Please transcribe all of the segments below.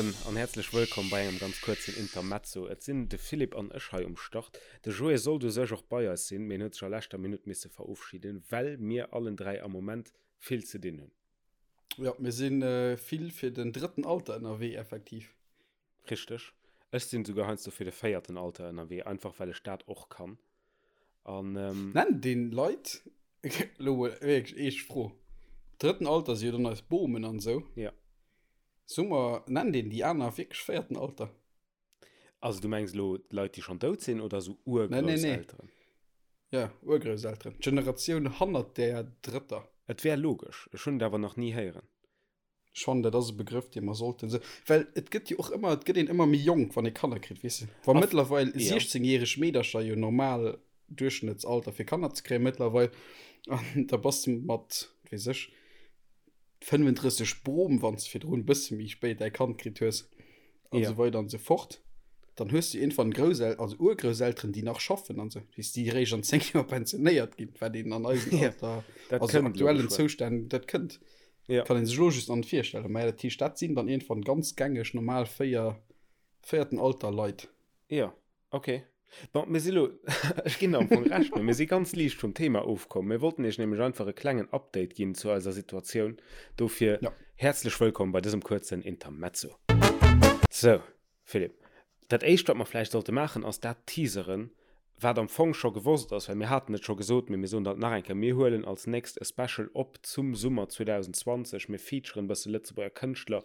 Hären an häerzlech wëllkomm bei engem ganz kuerzen Intermezzo. Et sinn de Philippe an ech hei um Start. De Joé sollt u sech och bei eis sinn, mee en huet sech a leschter Minutt misse verofschiden, well mir allen 3 am Moment vill ze dinn hunn. Jo, mir si vill fir den drëtten Alter ënnerwee, effektiv. Richteg. Ech sinn souguer heiansdo fir de véierten Alter ënnerwee, einfach well ech dat och kann. An, ähm. Nennt een Leit, elo mol wierklech eescht Fro, drëtten Alter si jo dann eis Bomen an esou. Ja. Soe mer, nennt een déi aner wierklech véierten Alter? Also du mengs elo d'Leit, déi schonn dout sinn oder esou Urgrousselteren? Nee, nee, nee. Ja, Urgrousselteren. D'Generatioun hannert där drëtter. Et wär logesch. Ech hunn et awer nach ni héieren. Ech fannen, dat ass e Begrëff, dee mer sollten esou, well et gëtt jo och ëmmer, et gëtt een ëmmer méi jonk, wann ee Kanner kritt, weess de. Wa mëttlerweil 16-järeg Meedercher jo normal Duerchschnëttsalter fir Kanner ze kréien mëttlerweil, an da bass de mat, wat weess ech, 35 Brom, wann s de virdrun e bësse méi spéit däi Kand kritt hues, an esou weider an esou fort, dann hues du iergendwann Groussel-, also Urgrousselteren, déi nach schaffen an esou, weess, déi eréischt an 10 Joer pensionéiert ginn, wat een an eisem Alter, also aktuellen Zoustänn, dat kënnt. Ja. Kann een sech lo just an virstellen. Mä dat heescht, dat sinn dann iergendwann ganz gängeg normal véier, véierten Alter Leit. Ja, okay. Bon, mir si lo, ech ginn der am Fong Recht, mee mir si ganz liicht vum Thema ofkomm. Mir wollten iech nämlech einfach e klengen Update ginn zu eiser Situatioun. Dofir Ja. häerzlech wëllkomm bei dësem kuerzen Intermezzo. Sou, Philippe, dat éischt wat mer vläicht sollte maachen ass dat teaseren, wat am Fong scho gewosst ass, well mir haten et scho gesot, mee mir soen dat nach eng Kéier, mir huelen als nächst e Special op zum Summer 2020, mir featuren e bësse Lëtzebuerger Kënschtler,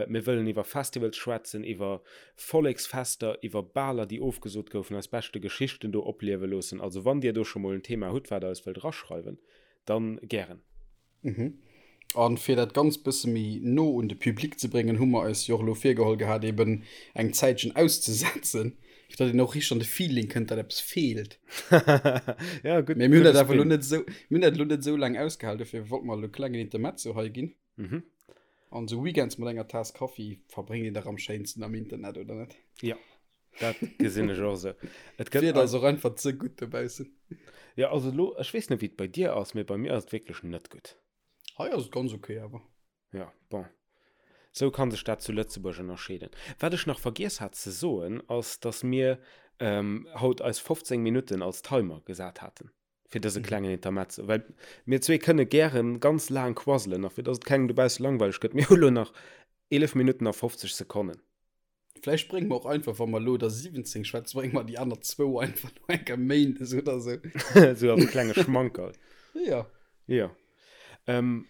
mir wëllen iwwer Festivals schwätzen, iwwer Volleksfester, iwwer Baler déi ofgesot goufen, eis beschte Geschichten do opliewe loossen. Also wann dir do scho mol en Thema hutt wat der eis wëllt eraschreiwen, dann gären. Mhm. An fir dat Ganzt bësse méi no un de Public ze bréngen, hu mer eis jo och elo virgeholl gehat, eben eng Zäitchen auszesetzen, fir datt een och richteg an de Feeling kënnt, datt eppes feelt. Ja, gutt, Mee mir hunn gudde dat awer elo Spin. net esou, mir hunn dat elo net esou laang ausgehal, dofir wollte mer elo e klengen Intermezzo hei ginn. Mhm. An esou Weekends mat enger Taass Kaffi verbréngt een dach am schéinsten am Internet, oder net? Ja, dat gesinn ech och esou. Et gëtt D'Wieder ass och einfach ze gutt dobaussen. Ja, also elo, ech weess net, wéi et bei dir ass, mee bei mir ass et wierklech net gutt. Hei ass et ganz ok awer. Ja, bon. Sou kann sech dat zu Lëtzebuerg ënnerscheeden. Wat ech nach vergiess hat ze soen, ass, dass mir haut eis 15 Minutten als Timer gesat haten fir dëse klengen Intermezzo, well mir zwee kënne gären ganz laang quasselen a fir dass et kengem dobausse langweileg gëtt, mir hu lo nach 11 Minutten a 50 Sekonnen. Vläicht brénge mer och einfach, wa mer elo der 17 schwätzen, brénge mer déi aner zwou einfach no enker Méindes oder sou. Sou als klenge Schmankerl. Ja. Ja. Ähm,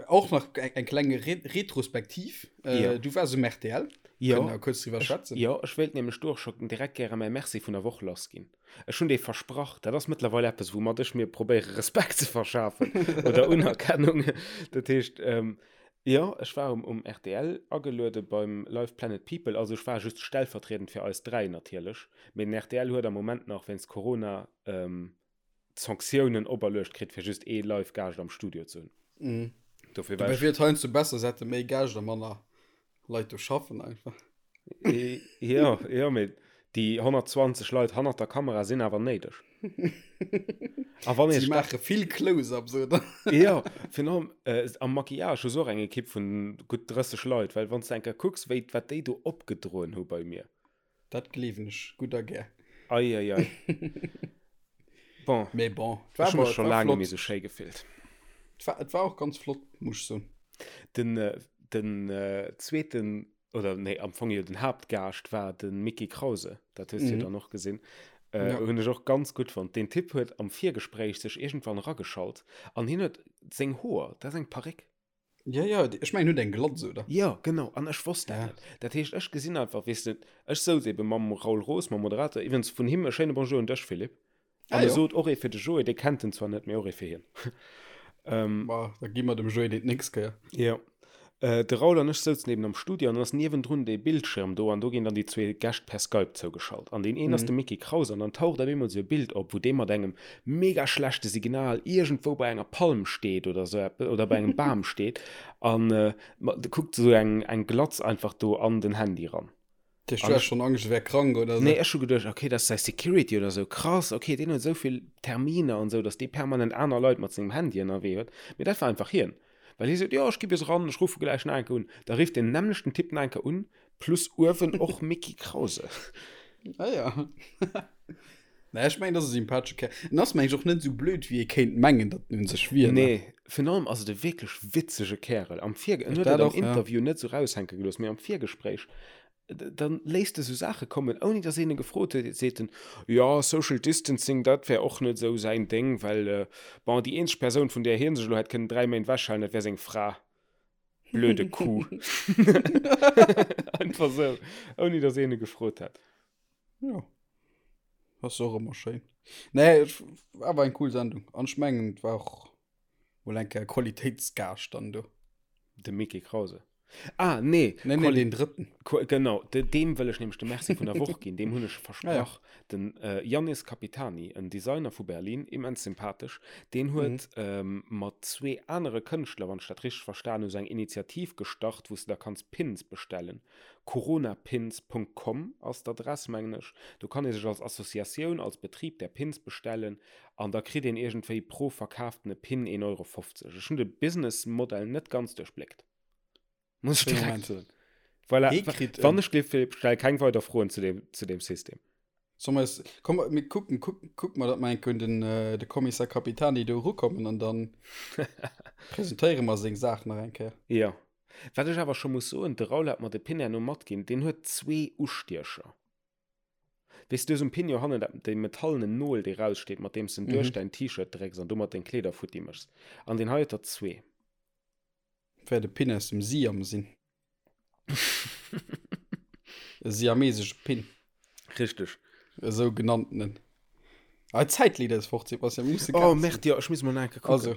Och nach eng, eng kleng Re Retrospektiv. Äh, Ja. Du waars um RTL. Ja. Kënnen wir kuerz driwwer schwätzen. Jo, ech wéilt nämlech do och scho direkt gäre mäi Merci vun der Woch lassginn. Ech hunn dee versprach. Dat ass mëttlerweil eppes, woumat ech mir probéiere Respekt ze verschafen oder Unerkennung. Dat heescht, ähm, Jo, ech war um um rtl ageluede beim Live Planet People, also ech war just stellvertriedend fir eis 3 natierlech, mee den rtl huet am Moment nach wéinst Corona Sanktiounen operluecht kritt fir just ee Live Gaascht am Studio ze hunn. Mhm. Dofir war Dobäi ech wier et heiansdo besser se hätte méi Gäscht a manner Leit do schaffen einfach. Jo, jo, mee déi 120 Leit hannert der Kamera sinn awer néideg. A wann Si maache vill Close-ups, oder? Jo, virun allem äh, am Maquillage hu se och eng Ekipp vun gutt 30 Leit, well wann s de eng Kéier kucks, wéi, wat déi do opgedroen hu bei mir. Dat gleewen ech gutt a gär. Ei, ei, ei. Bon, Mee bon, et war, ech hu mech scho laang net méi esou schéi gefillt. Et war, et war och ganz flott, muss ech soen. Den, den zweeten, oder nee, am Fong jo den Haaptgaascht war de Mickie Krause. Dat hues du jo dann och gesinn. Äh, hunn ech och ganz gutt fonnt. Deen Typ huet am Virgespréich sech iergendwann erageschalt an hien huet seng Hoer, dat ass eng Paréck. Ja, ja, ech mengen, huet eng Glatz, oder? Jo, genau, an ech wosst dat Ja. net. Dat heescht, ech gesinn einfach, weess de, ech souz ebe mam Raoul Roos, mam Moderator, iwwregens vun him e schéine Bonjour un dech, Philippe. Ah, An e jo. sot och ee fir de Joé, dee kennt en zwar net, mee och ee fir hien. Ähm, Ma, da gi mer dem Joé deen d'nächst Kéier. Jo. Äh, de Raoul an ech souzen eben am Studio an dann ass niewendrun dee Bildschirm do an do ginn dann déi zwee Gäscht per Skype zougeschalt. An deen een ass de Micky Kraus an dann taucht op eemol sou e Bild op, wou dee mat engem mega schlechte Signal iergendwou bei enger Palm steet oder sou eppes oder bei engem Bam steet an äh, kuckt sou eng, eng Glatz einfach do an den Handy ran. Du hast schon Angst, e wär krank oder sou? Nee, ech hu geduecht, okay, dat ass säi Security oder sou, krass, okay, deen huet esou vill Terminer an sou, datt dee permanent aner Leit mat sengem Handy ënnerwee huet. Mee dat war einfach hien. Well hie seet, jo, ech gi bis eran, ech ruffe gläich nach eng Kéier un. Da rifft deen nämmlechten Typ nach eng Kéier un, plus uewen och Micky Krause. Ah ja. Naja, ech mengen, dat ass e sympathesche Kerl. En ass, meng ech, och net esou blöd, wéi ee kéint mengen, datt en un sech wier, ne? Nee, virun allem ass et e wierklech witzege Kärel. Am Virge-, en huet et am Interview net esou raushänke gelooss, mee am Virgespréich Dann léisst e sou Saache kommen, ouni datt een e gefrot huet. Seet en, jo, Social Distancing, dat wär och net esou säin Déng, well, bon, déi eenzeg Persoun, vun där hie sech elo hätt kënnen 3 Méint ewechhalen, dat wär seng Fra. Blöde Kuh. Einfach esou, ouni datt een e gefrot hätt. Jo, ass och ëmmer schéin. Nee, et war awer eng cool Sendung. An ech mengen, et war och mol eng Kéier Qualitéitsgaascht dann do. De Micky Krause. Ah, nee. Nee, nee, deen drëtten. Genau, deem wëll ech nämlech de Merci vun der Woch ginn. Deem hunn ech versprach. Ah, ja. Den äh, Jannis Capitani, en Designer vu Berlin, immens sympathesch, deen huet mhm. ähm, mat zwee anere Kënschtler, wann ech dat richteg verstan hu, sou eng Initiativ gestart, wou s de da kanns Pins bestellen. Coronapins.com ass d'Adress, mengen ech. Do kann ee sech als Associatioun, als Betrib där Pins bestellen an da kritt een iergendwéi pro verkaaftene Pin 1,50 Euro. Ech hunn de Businessmodell net ganz duerchbléckt, muss ech direkt soen. Voilà, wann ech gleef, Philippe, stell keng weider Froen zu deem, zu deem System. Soll mer es, komm, mir kucken, kuck, kuck mer, datt mer eng Kéier un den, de Kommissar Capitani do erukommen an dann presentéiere mer seng Saach nach eng Kéier. Jo. Wat ech awer scho muss soen, de Raoul hat mer de Pin herno matginn, deen huet zwee Ustiecher. Weess du, esou um Pin jo hannen dat, déi metallenen Nol, déi raussteet, mat deem s de en duerch däin T-Shirt drécks an domat deng Kleeder futti méchs. An deen hei huet der zwee. Wäert e Pin aus dem Siam sinn. E siamesesche Pin. Richteg. E sougenanntenen. Ah, d'Zäit leet eis fort, Sebastian. Mir musse Oh, Gas merde, jo, ech muss mol nach eng Kéier kucken. Also,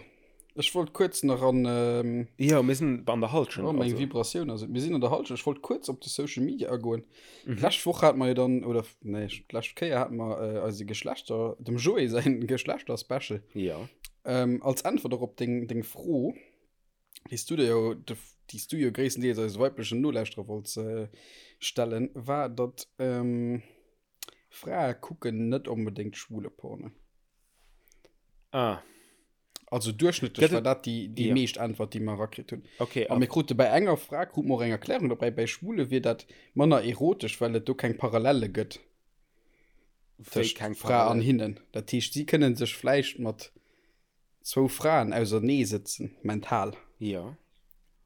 ech wollt kuerz nach an. Ähm, Jo, mir sinn an der Hallschent. Oh, meng also. Vibratioun ass et. Mir sinn an der Hallschent. Ech wollt kuerz op de Social Media agoen. Mhm. D'lescht Woch hate mer jo dann, oder nee, d'lescht Kéier hate mer äh, eise Geschlechter, dem Joé säin Geschlechter-Special. Ja. Ähm, als Äntwert och op deng, deng Fro, déi s du dir jo, déi s du jo gréisstendeels eise weiblechen Nolauschterer wollts äh, stellen, war, datt ähm, Frae kucken net onbedéngt schwule Porno. Ah. Also duerchschnëttlech war dat déi, déi ja. meescht Äntwert, déi mer erakritt hunn. Okay. A mir krute bei enger Fra krute mer och eng Erklärung dobäi, bei Schwule wier dat manner erotesch, well et do keng Parallelle gëtt tëscht Fra an hinnen. Dat heescht, si kënne sech vläicht mat zwou Fraen ausernee sëtzen, mental. Ja.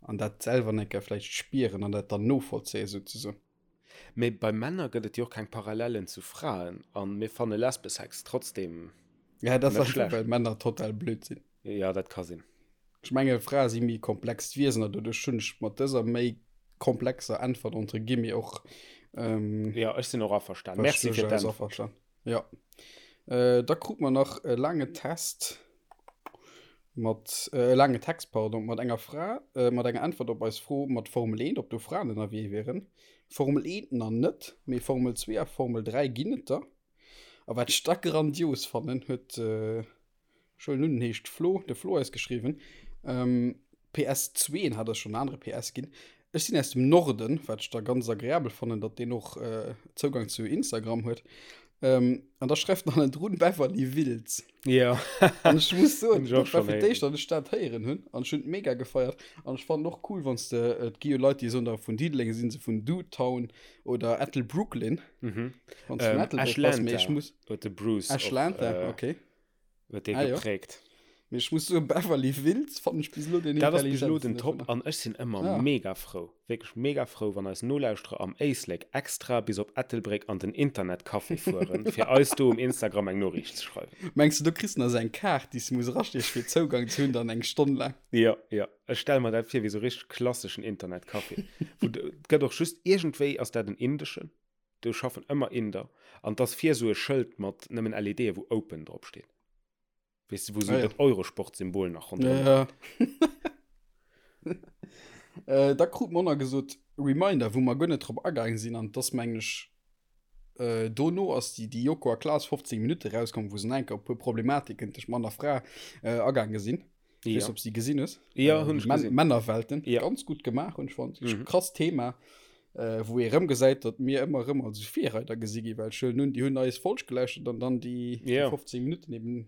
An dat selwer eng Kéier vläicht spieren an dat dann novollzéien, souzesoen. Mee bei Männer gëtt et jo och keng Parallellen zu Fraen an mir fanne Lesbesex trotzdem Ja, dat ass einfach, well Männer total blöd sinn. Ja, dat ka sinn. Ech menge Frae si méi komplext Wiesen an doduerch hunn ech mat dëser méi komplexer Äntwert entre guillemets och. Ähm, ja, ech sinn och averstan. Merci fir d'Äntwert. Ja. Äh, da krut mer nach e laange Test mat äh, e laange Text, pardon, mat enger Fra, äh, mat enger Äntwert op eis Fro mat Formel 1, ob do Fraen ënnerwee wieren. Formel 1 nach net, mee Formel 2 a Formel 3 ginn et der. A wat ech da grandios fannen, huet äh, Ech huelen un, en heescht Flo, de Flo eis geschriwwen. Ähm, PS2, en hat eis schonn en anere PS ginn. Ech sinn aus dem Norden, wat ech da ganz agreabel fannen, datt deen och äh, Zougang zu Instagram huet. Ähm, an da schreift en hannendrun Beverly Wills. Ja. An ech muss soen, dat war fir d'éischt, datt ech dat héieren hunn. An ech hunn et mega gefeiert. An ech fannen och cool, wann s de, et gi jo Leit, déi soen da vun Diddeleng sinn se vun Dudetown oder Ettelbrooklyn. Mhm. Wann s de vun Ähm, Ettelbréck bass, mee ech Ashlanta muss. huet de Bruce och, Ashlanta, äh, okay. Huet dee Ah, jo. geprägt. Mee ech muss soen, Beverly Wills fannen ech bis elo den Dat ass bis elo den intelligentsten Top dovunner. an ech sinn ëmmer Ah. mega frou, wierklech mega frou, wann eis Nolauschterer am Éislek extra bis op Ettelbréck an den Internetcafé fueren, fir eis do um Instagram eng Noriicht ze schreiwen. Mengs du, do kriss de nach esou eng Kaart, déi s de muss erastiechen, fir Zougang ze hunn, dann eng Stonn laang? Jo, jo. Ech stelle mer dat vir wéi sou richteg klasseschen Internetcafé, wou de, et gëtt och just, iergendwéi ass dat en indeschen, Do schaffen ëmmer Inder. An 't ass vir esou e Schëld mat nëmmen LEDe wou Open drop steet. Weess de, wou esou Ah, ja. dat Eurosport-Symbol nach ronderëm Ja. Äh, da krut mer och nach gesot, Reminder, wou mer guer net drop agaang sinn, an 't ass mengen ech, äh, dono ass déi, déi Joko a Klaas 15 Minutte rauskomm, wou se nach eng Kéier op e puer Problematiken tëscht Mann a Fra, äh, agaange sinn. Ich Ja. weiß, ob sie gesinn hues. Ja, Äh, hunn ech Män gesinn. Männerwelten. Ja. Ganz gut gemaach, hunn ech fonnt. Mhm. Krass Thema, äh, wou ee rëm gesäit, datt mir ëmmer rëm als Virreider gesi gi, well ech huelen un, déi hunn eis Folg gelauschtert an dann déi, déi Ja. 15 Minutten eben.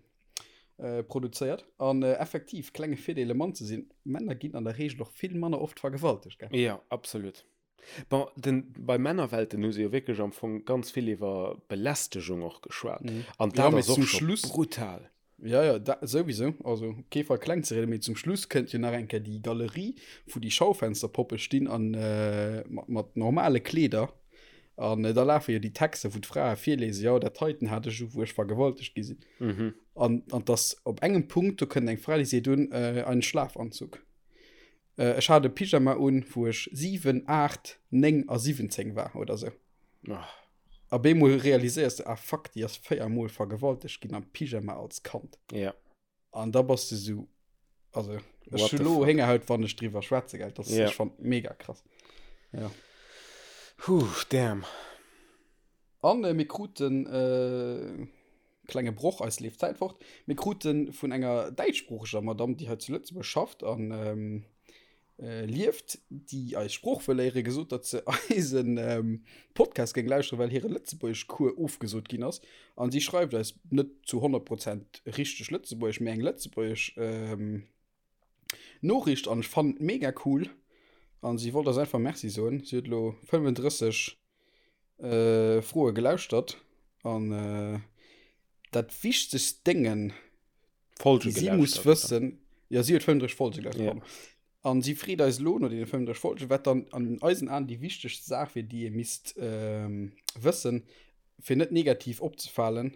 Produzéiert. An effektiv, klenge Virdeel e Mann ze sinn, Männer ginn an der Reegel och vill manner oft vergewaltegt, gell? Jo, absolut. Bon, den, bei Männerwelten hu se jo wierklech am Fong ganz vill iwwer Belästegung och geschwat. An Ja, dat mee ass och zum scho Schluss, brutal. ja, ja, da, souwisou, also op kee Fall kleng ze rieden, mee zum Schluss kënnt jo nach eng Kéier déi Galerie, wou déi Schaufensterpoppe stinn an mat, mat normale Kleeder. An da lafe jo déi Texter, wou d'Frae virlesen, jo, dat heiten hat ech u, wou ech vergewaltegt gi sinn. Mhm. An, an dass op engem Punkt, do kënnt eng Fra, déi seet un, äh, einen Schlafanzug. Äh, ech hat e Pyjama un, wou ech 7, 8, 9 a 17 war oder sou. Oh. A bemol realiséiers de, ah fuck, déi ass 4 Mol vergewaltegt ginn am Pyjama als Kand. Ja. An da bass de sou, also ech hu lo Héngerhaut, wann ech driwwer schwätze, gell, dat yeah. ech fand mega krass. Ja. Huh, damn. An äh, mir kruten äh, klenge Broch, eis leeft d'Zäit fort. Mir kruten vun enger däitschsproocheger Madame, déi hei zu Lëtzebuerg schafft an ähm, lieft, déi eis Sprooch wëll léieren, gesot, datt se eisen Podcast géing lauschteren, well hire Lëtzebuergeschcours ofgesot ginn ass. An si schreift eis net zu 100 Prozent richteg Lëtzebuergesch, mee eng lëtzebuergesch Noriicht an ech fannen et mega cool. An si wollt eis einfach Merci soen. Si huet elo 35 Froe gelauschtert an dat wichtegst Déngen, Folge déi si muss gelauschtert, wëssen, jo si huet 35 Folge gelauschtert, Ja. pardon. An si freet eis elo no deene 35 Folgen, wat dann an eisen Aen déi wichtegst Saach wier, déi ee misst ähm, wëssen, fir net negativ opzefalen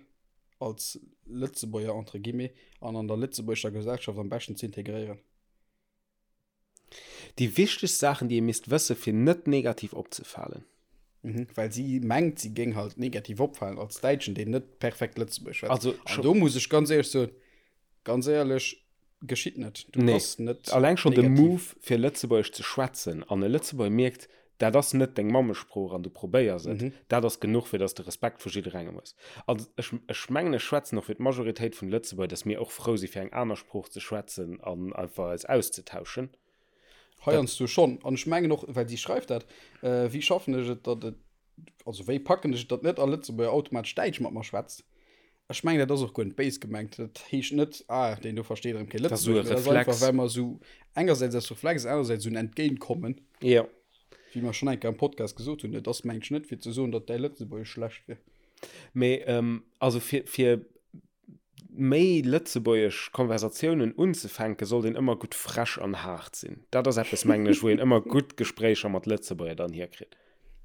als Lëtzebuerger entre guillemets an an der lëtzebuergescher Gesellschaft am beschten ze integréieren. Déi wichtegst Saachen, déi ee misst wësse fir net negativ opzefalen. Mhm, well si mengt, si géing halt negativ opfalen als Däitschen, deen net perfekt Lëtzebuergesch schwätzt. Also An do muss ech ganz éierlech soen, ganz éierlech, geschitt net. Du Nee. bass net Alleng schonn de negativ. Move fir Lëtzebuergesch ze schwätzen an e Lëtzebuerger mierkt, dat ass net deng Mammesprooch an du probéiers et, dat ass genuch fir dass de Respekt vu jidderengem hues. An ech, ech mengen ech schwätzen och fir d'Majoritéit vun de Lëtzebuerger, dass mir och frou si fir eng aner Sprooch ze schwätzen an einfach eis auszetauschen. Heiansdo schonn. An ech mengen och, well si schreift dat, wéi schaffen ech et, datt et, also wéi packen ech et, datt net all Lëtzebuerger automatesch Däitsch mat mer schwätzt. Ech mengen, dat ass och guer net béis gemengt. Dat heescht net, ah, deen do versteet erëm kee Dat ass esou e Lëtzebuergesch, mee dat ass einfach, Reflex. well mer esou engersäits aus Reflex, anersäits esou en Entgéintkommen, Jo. wéi mer schonn eng Kéier am Podcast gesot hunn. Et ass, mengen ech, net fir ze soen, datt däi Lëtzebuergesch schlecht wier. Mee also fir, fir méi lëtzebuergesch Konversatiounen unzefänken, sollt een ëmmer gutt frech an haart sinn. Dat ass eppes, mengen ech, wou een ëmmer gutt Gespréicher mat Lëtzebuerger dann hierkritt.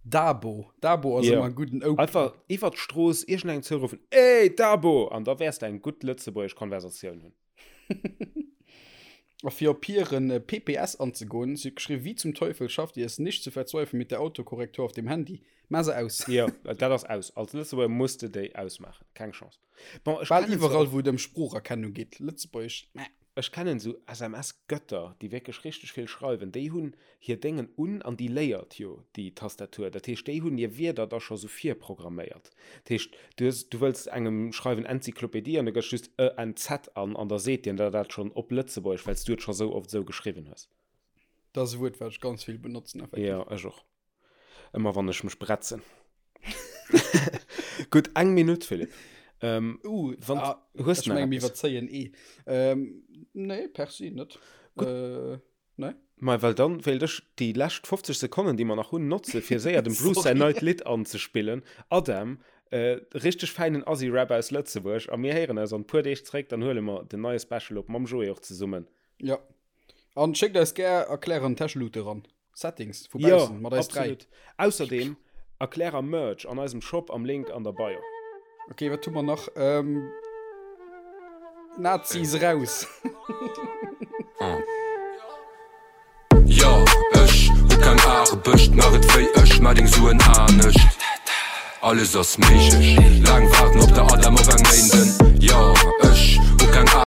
Dabo, Dabo ass Jo. ëmmer e gudden Opener. Einfach iwwer d'Strooss iergendengem zouruffen, Ey, Dabo! An da wäers de eng gutt lëtzebuergesch Konversatioun hunn. A fir op hiren PPS anzegoen, si huet geschriwwen, Wie zum Teufel schafft ihr es nicht zu verzweifeln mit der Autokorrektur auf dem Handy? Maa se aus. Jo, dat ass aus. Als Lëtzebuerger muss de déi ausmaachen. Keng Chance. Bon, ech Bal iwwerall, wou et ëm Sproocherkennung geet. Lëtzebuergesch, meh. Ech kennen esou SMS-Götter, déi wierklech richteg vill schreiwen. Déi hunn hir Déngen un an déi léiert jo déi Tastatur. Dat heescht, déi hunn hir Wierder da scho sou virprogramméiert. Dat heescht, du hues, du wëlls engem schreiwen Enzyklopedie an du gëss just e n z an an da seet dien der dat schonn op Lëtzebuergesch, well s du et scho sou oft esou geschriwwen hues. Dat ass e Wuert, wat ech ganz vill benotzen, effektiv. Jo, ech och. Ëmmer wann ech mech bretzen. Gutt, eng Minutt, Philippe. Ähm, uh, wann, ah, hues ech du nach menge mir eppes? iwwerzéien eh. Ähm, nee, per se net. Gutt. Äh, nee. Ma well dann wéilt ech déi lescht 50 Sekonnen, déi mer nach hunn, notze fir séier dem Bruce säin Sorry. neit Lidd anzespillen. Adam, äh, richteg fäinen Assi-Rap aus Lëtzebuerg. A mir héieren eis an puer Deeg zréck, dann huele mer den neie Special op mam Joé och zesummen. Ja. An schéckt eis gär Erklärer an Täscheluute ran. Settings vu Jo, baussen mat eis 3. absolut. Ausserdeem Erklärer Merch an eisem Shop am Link an der Bio. Ok, wat hu mer nach? Ähm, Nazis raus! Jo, ech hu keng Aarbecht, mach et wéi ech, mar deng Suen anescht. Alles ass méiglech, laang waarden op der Adam op eng Méinden. Jo, ech hu keng.